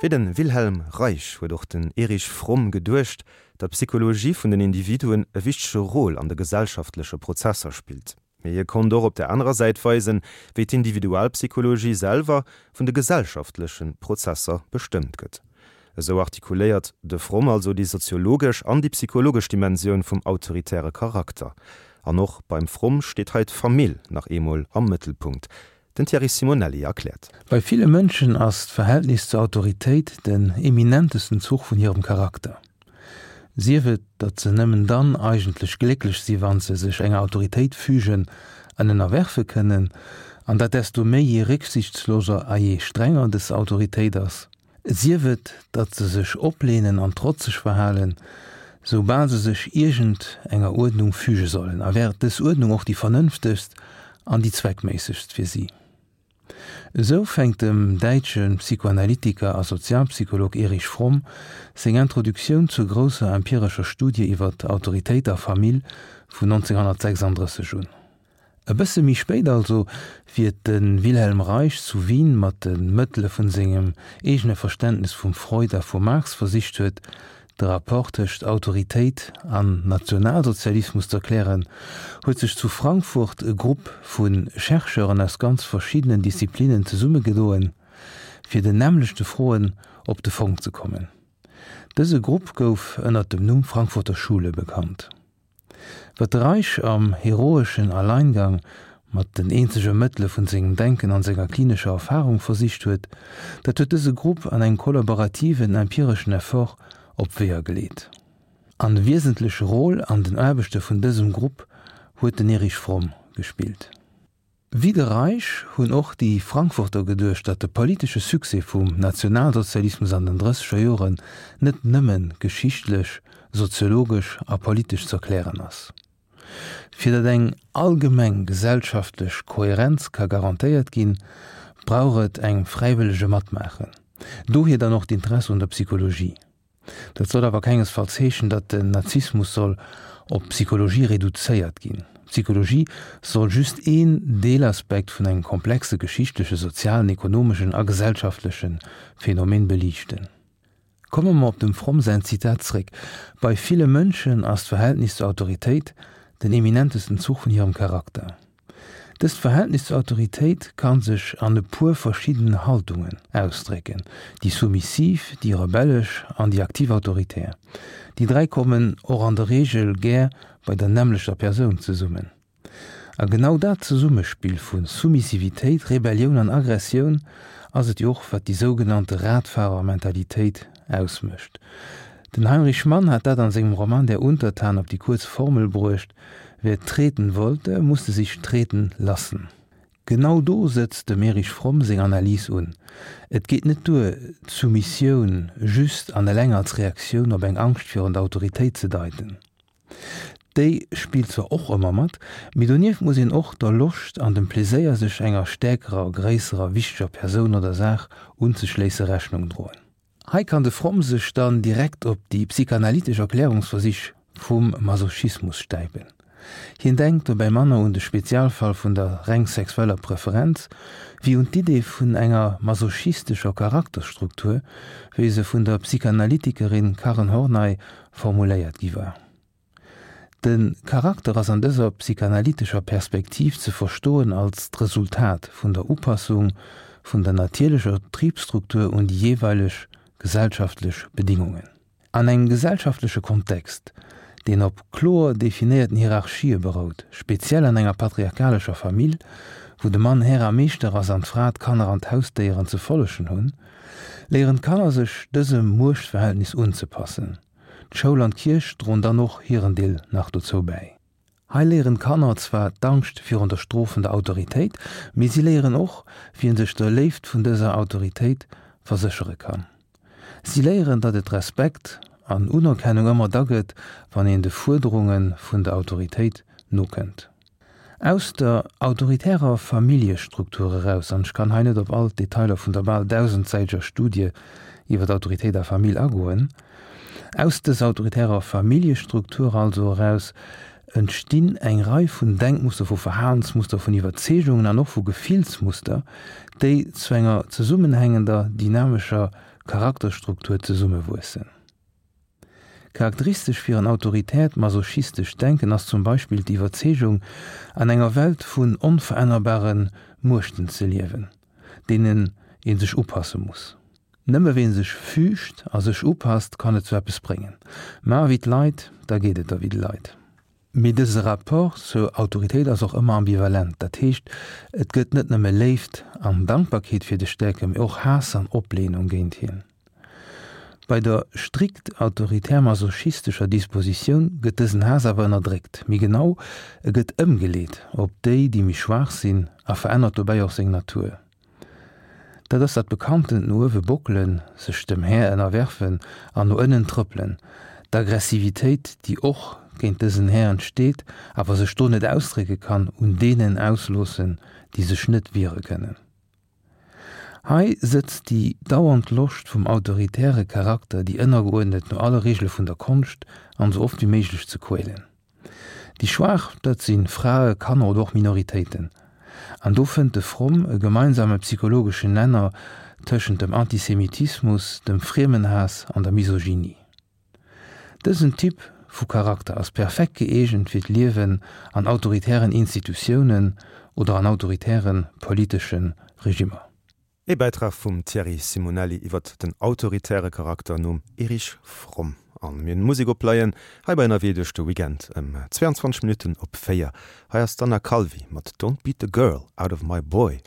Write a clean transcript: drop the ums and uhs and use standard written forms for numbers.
Wéi de Wilhelm Reich huet och den Erich Fromm geduecht, datt d'Psychologie vun den Individuen e wichtege Rôle an de gesellschaftleche Prozesser spillt. Mee hie konnt och op der anerer Säit weisen, wéi d'Individualpsychologie selwer vun de gesellschaftleche Prozesser bestëmmt gëtt. Esou artikuléiert de Fromm also déi soziologesch an déi psychologesch Dimensioun vum autoritäre Charakter. An och beim Fromm steet hei d'Famill nach eemol am Mëttelpunkt. Den Thierry Simonelli erkläert. Bei ville Mënschen ass d'Verhältnis zur Autoritéit den eminentesten Zuch vun hirem Charakter. Sief et, datt se nëmmen dann eigentlech glécklech si wann se sech enger Autoritéit fügen an ënnerwerfe kënnen, an dat desto méi je récksichtsloser a je strenger dës Autoritéit ass. Sief et, datt se sech opleenen an trotzeg verhalen, soubal se sech iergend enger Uerdnung füge sollen, a wär dës Uerdnung och déi vernënftegst an déi zweckméissegst fir si. Esou fänkt dem däitsche Psychoanalytiker a Sozialpsycholog Erich Fromm seng Introduktioun zur grousser empirescher Studie iwwer Autoritéit a Famill vun 1936 un. E bësse méi spéit also, wéi et de Wilhelm Reich zu Wien mat de Mëttele vun sengem eegene Verständnes vum Freud a vum Marx versicht huet, de Rapport tëscht Autoritéit an Nationalsozialismus z'erklären, huet sech zu Frankfurt e Grupp vu Chercheuren aus ganz verschiddenen Disziplinnen zesummegedoen, fir den nämmlechte Froen op de Fong ze kommen. Dëse Grupp gouf ënnert dem Numm Frankfurter Schule bekannt. Wat de Reich am heroeschen Alleingang mat den eenzege Mëttele vun sengem Denken an senger klinescher Erfahrung versicht huet, dat huet dëse Grupp an engem kollaborativen empireschen Effort op Weeër geleet. An e wiesentleche Rôle an den Aarbechte vun dësem Grupp huet den Erich Fromm gespillt. Wéi de Reich hunn och déi Frankfurter geduecht, datt de politesche Succès vum Nationalsozialismus an den drësseger Joren net nëmme geschichtlech, soziologesch a politesch z'erklären ass. Fir datt eng allgemeng gesellschaftlech Kohärenz ka garantéiert ginn, brauch et eng fräiwëllege Matmaachen. Dohier dann och d'Interesse un der Psychologie. Dat soll awer kengesfalls heeschen, datt den Nazismus soll op d'Psychologie reduzéiert ginn. D'Psychologie soll just een Deelaspekt vun engem komplexe geschichtleche, sozialen, ekonomeschen a gesellschaftleche Phänomen beliichten. Komme mer op dem Fromm säin Zitat zréck, Bei ville Mënschen ass d'Verhältnis zur Autoritéit den eminentesten Zuch vun hirem Charakter. Dëst Verhältnis zur Autoritéit ka sech an e puer verschiddenen Haltungen ausdrécken, déi soumissiv, déi rebellesch an déi aktiv autoritär. Déi 3 kommen och an der Reegel gär bei der nämmlechter Persoun zesummen. A genau dat Zesummespill vu Soumissivitéit, Rebellioun an Aggressioun ass et jo och, wat déi sougenannte Radfahrermentalitéit ausmécht. Den Heinrich Mann hat dat an sengem Roman Der Untertan op déi kuerz Formel bruecht, Wer treten wollte, musste sich treten lassen. Genau do sëtzt dem Erich Fromm seng Analys un. Et geet net duer, d'Soumissioun just an eleng als Reaktioun op eng Angscht virun der Autoritéit ze deiten. Déi spillt zwar och ëmmer mat, mee donieft muss een och der Loscht an dem Pleséier, sech enger stäerkerer, gréisserer, wichteger Persoun oder Saach unzeschléisse Rechnung droen. Hei kann de Fromm sech dann direkt op déi psychanalytesch Erklärungsversich vum Masochismus stäipen. Hien denkt dobäi manner un de Spezialfall vun der reng sexueller Preferenz, wéi un d'Idee vun enger masochistescher Charakterstruktur, wéi se vun der Psychanalytikerin Karen Horney formuléiert gi war. De Charakter ass an dëser psychanalytescher Perspektiv ze verstoen als d'Resultat vun der Upassung vun der natierlecher Tribstruktur un déi jeeweileg gesellschaftlech Bedingungen. An engem gesellschaftleche Kontext, deen op kloer definéierten Hierarchië berout, speziell an enger patriarchalescher Famill, wou de Mann Här a Meeschter ass an d'Fra d'Kanner an d'Hausdéieren ze follegen hunn, léieren d'Kanner sech dësem Muechtverhältnis unzepassen. D'Schoul an d'Kierch droen dann och hiren Deel nach dozou bäi. Hei léieren d'Kanner zwar d'Angscht virun der strofender Autoritéit, mee si léieren och, wéi een sech der Léift vun dëser Autoritéit verséchere kann. Si léieren, datt et Respekt an Unerkennung ëmmer da gëtt, wann een de Fuerderunge vun der Autoritéit nokënnt. Aus der autoritärer Familljestruktur eraus, an ech kann hei net op all d'Detailer vun der bal dausendsäiteger Studie iwwer Autoritéit a Famill agoen, aus dëser autoritärer Familljestruktur also eraus entstinn eng Rei vun Denkmuster, vu Verhalensmuster, vun Iwwerzeegungen an och vu Gefillsmuster, déi zu enger zesummenhängender, dynamescher. Charakterstruktur zesummewuessen. Charakteristesch fir en autoritäert masochistescht Denken ass zum Beispill d'Iwwerzeegung, an enger Welt vun onverännerbare Muechten ze liewen, deenen ee sech upasse muss. Nëmme ween sech füügt a sech upasst, kann et zu eppes bréngen. Maach ewéi d'Leit, da geet et der wéi de Leit. Mee dëse Rapport zur Autoritéit ass och ëmmer ambivalent, dat heescht, et gëtt net nëmme Léift an Dankbarkeet fir de Stäerke, mee och Haass an Opleenung géint hien. Bei der strikt autoritär-masochistescher Dispositioun gëtt dësen Haass awer ënnerdréckt, méi genau, e gëtt ëmgeleet op déi, déi méi schwaach sinn a verännert dobäi och seng Natur. Dat ass dat bekanntent no uewe bockelen, sech dem Här ënnerwerfen an no ënnen trëppelen, d'Aggressivitéit, déi och géint dësen Här entsteet, awer sech do net ausdrécke kann, un deenen ausloossen, déi sech net wiere kënnen. Hei sëtzt déi dauernd Loscht vum autoritäre Charakter, déi Ënnergeuerdnet no alle Regele vun der Konscht an esou oft wéi méiglech ze quälen. Déi Schwaach, dat si Frae, Kanner oder och Minoritéiten. An do fënnt de Fromm e gemeinsame psychologeschen Nenner tëschent dem Antisemitismus, dem Friemenhaass an der Misogynie. Dësen Typ vu Charakter ass perfekt gëeegent fir d'Liewen an autoritären Institutiounen oder an autoritäre politesche Regimmer. Ee Bäitrag vum Thierry Simonelli iwwert den autoritäre Charakter nom Erich Fromm. An mir hunn Musek opleien hei bei Ënnerwee duerch de Weekend ëm 22 Minutten op 4. Hei ass d'Anna Calvi mat Don't Beat the Girl Out of My Boy.